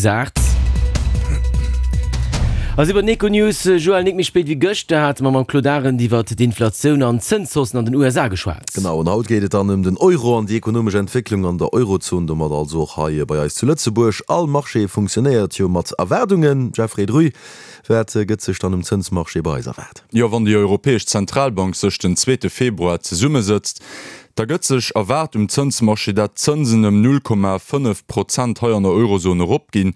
Sponsart. A si bei den Econews. Joël, nik méi spéit wéi gëschter hate mer mam Claude Arend iwwert d'Inflatioun an d'Zënshaussen an den USA geschwat. Genau, an haut geet et dann ëm den Euro an déi ekonomesch Entwécklung an der Eurozon, domat also och hei bei eis zu Lëtzebuerg. All Marché funktionéiert jo mat Erwaardungen. Jeffrey Druy, wat gëtt sech dann um Zënsmarché bei eis erwaart? Jo, wann déi Europäesch Zentralbank sech den zweete Februar zesummesëtzt, da gëtt sech erwaart um Zënsmarché, dat d'Zënsen ëm 0,5 Prozent hei an der Eurozon eropginn.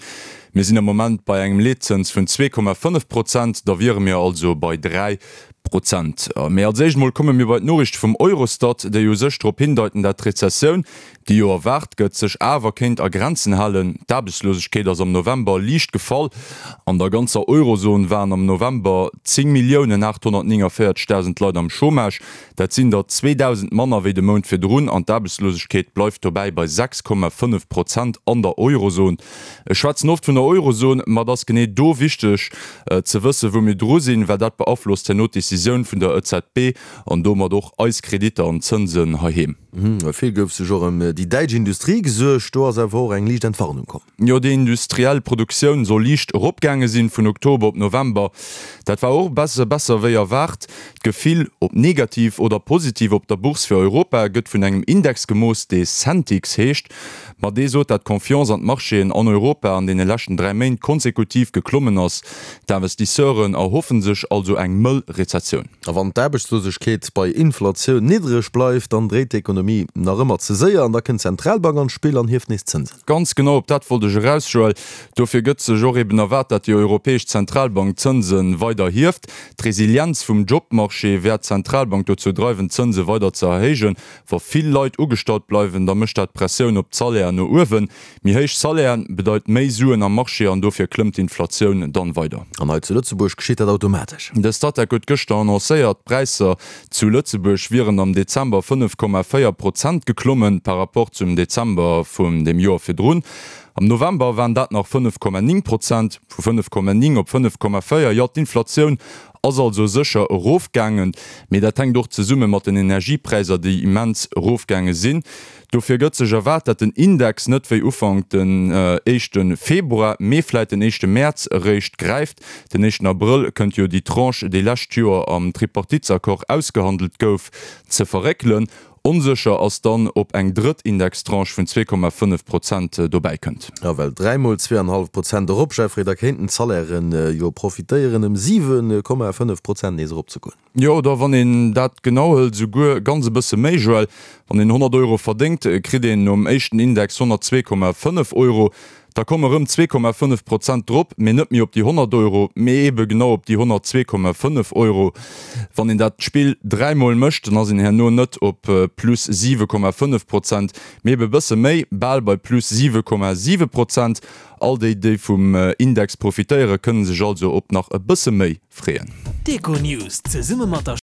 Mir sinn am Moment bei engem Leetzëns vun 2,5 Prozent, da wiere mir also bei 3 Prozent. Mee als éischt mol komme mir bei d'Noriichte vum Eurostat, déi u sech drop hindeiten, dat d'Rezessioun, déi jo erwaart gëtt, sech awer kéint a Grenzen halen. D'Aarbechtslosegkeet ass am November liicht gefall. An der ganzer Eurozon waren am November 10.849.000 Leit am Chômage. Dat sinn der 2.000 manner wéi de Mount virdrun an d'Aarbechtslosegkeet bleift dobäi bei 6,5 Prozent an der Eurozon. Ech schwätzen oft vun der Eurozon, ma et ass genee do wichteg ze wëssen, wou mir dru sinn, well dat beaflosst herno d'Decisioun vun der EZB an domat och eis Kreditter an d'Zënsen heiheem. Vill gouf sech och ëm déi däitsch Industrie gesuergt. Do ass awer och eng liicht Entwarnung komm. Jo, déi industriell Produktioun soll liicht eropgaange sinn vun Oktober op November. Dat war och e besse besser wéi erwaart. D'Gefill, ob negativ oder positiv op der Bourse fir Europa, gëtt vun engem Index gemooss, dee Sentix heescht. Ma dee sot, dat d'Confiance an d'Marchéen an Europa an deene leschten 3 Méint konsekutiv geklommen ass. D'Investisseuren erhoffe sech also eng mëll Rezessioun. A wann d'Aarbechtslosegkeet bei Inflatioun niddreg bleift, dann dréit d'Ekonomie nach ëmmer ze séier an da kënnt d'Zentralbank an d'Spill an hieft nees d'Zënsen. Ganz genau op dat wollt ech eraus, Joël. Dofir gëtt sech och eben erwaart, dat déi Europäesch Zentralbank d'Zënse weider hieft. D'Resilienz vum Jobmarché wäert d'Zentralbank dozou dreiwen, d'Zënse weider ze erhéijen. Wa vill Leit ugestallt bleiwen, da mécht dat Pressioun op d'Salairen no uewen. Méi héich Salairen bedeit méi Suen am Marché an dofir klëmmt d'Inflatioun dann weider. An hei zu Lëtzebuerg geschitt dat automatesch. De Statec huet gëschter annoncéiert, d'Präisser zu Lëtzebuerg wieren am Dezember 5,4 Prozent geklommen par rapport zum Dezember vun dem Joer virdrun. Am November waren dat nach 5,9 Prozent. Vu 5,9 op 5,4, jo d'Inflatioun Ass also sécher erofgaangen, mee dat hänkt och zesumme mat den Energiepräisser, déi immens erofgaange sinn. Dofir gëtt sech erwaart, dat den Index net wéi Ufank den éischte Februar, mee vläit den éischte Mäerz eréischt gräift. Den éischten Abrëll kënnt jo déi Tranche, déi lescht Joer am Tripartitesaccord ausgehandelt gouf, ze verréckelen. Onsécher ass dann, ob eng drëtt Indextranche vun 2,5 Prozent dobäi kënnt. Jo, well dräimol zweeanenhallef Prozent erop, Jeffrey, da kéinten d'Salairen jo profitéieren, ëm 7,5 Prozent nees eropzegoen. Jo, oder wann een dat genau hëlt, esouguer ganz e bësse méi, Joël. Wann een 100 Euro verdéngt, kritt een nom éischten Index 102,5 Euro. Da komme rëm 2,5 Prozent drop, mee net méi op déi 100 Euro, mee eebe genau op déi 102,5 Euro. Wann een dat Spill dräimol mécht, dann ass een herno net op plus 7,5 Prozent, mee ebe bësse méi, bal bei plus 7,7 Prozent. All déi, déi vum Index profitéieren, kënne sech also op nach e bësse méi freeën. D'Econews zesumme mat der.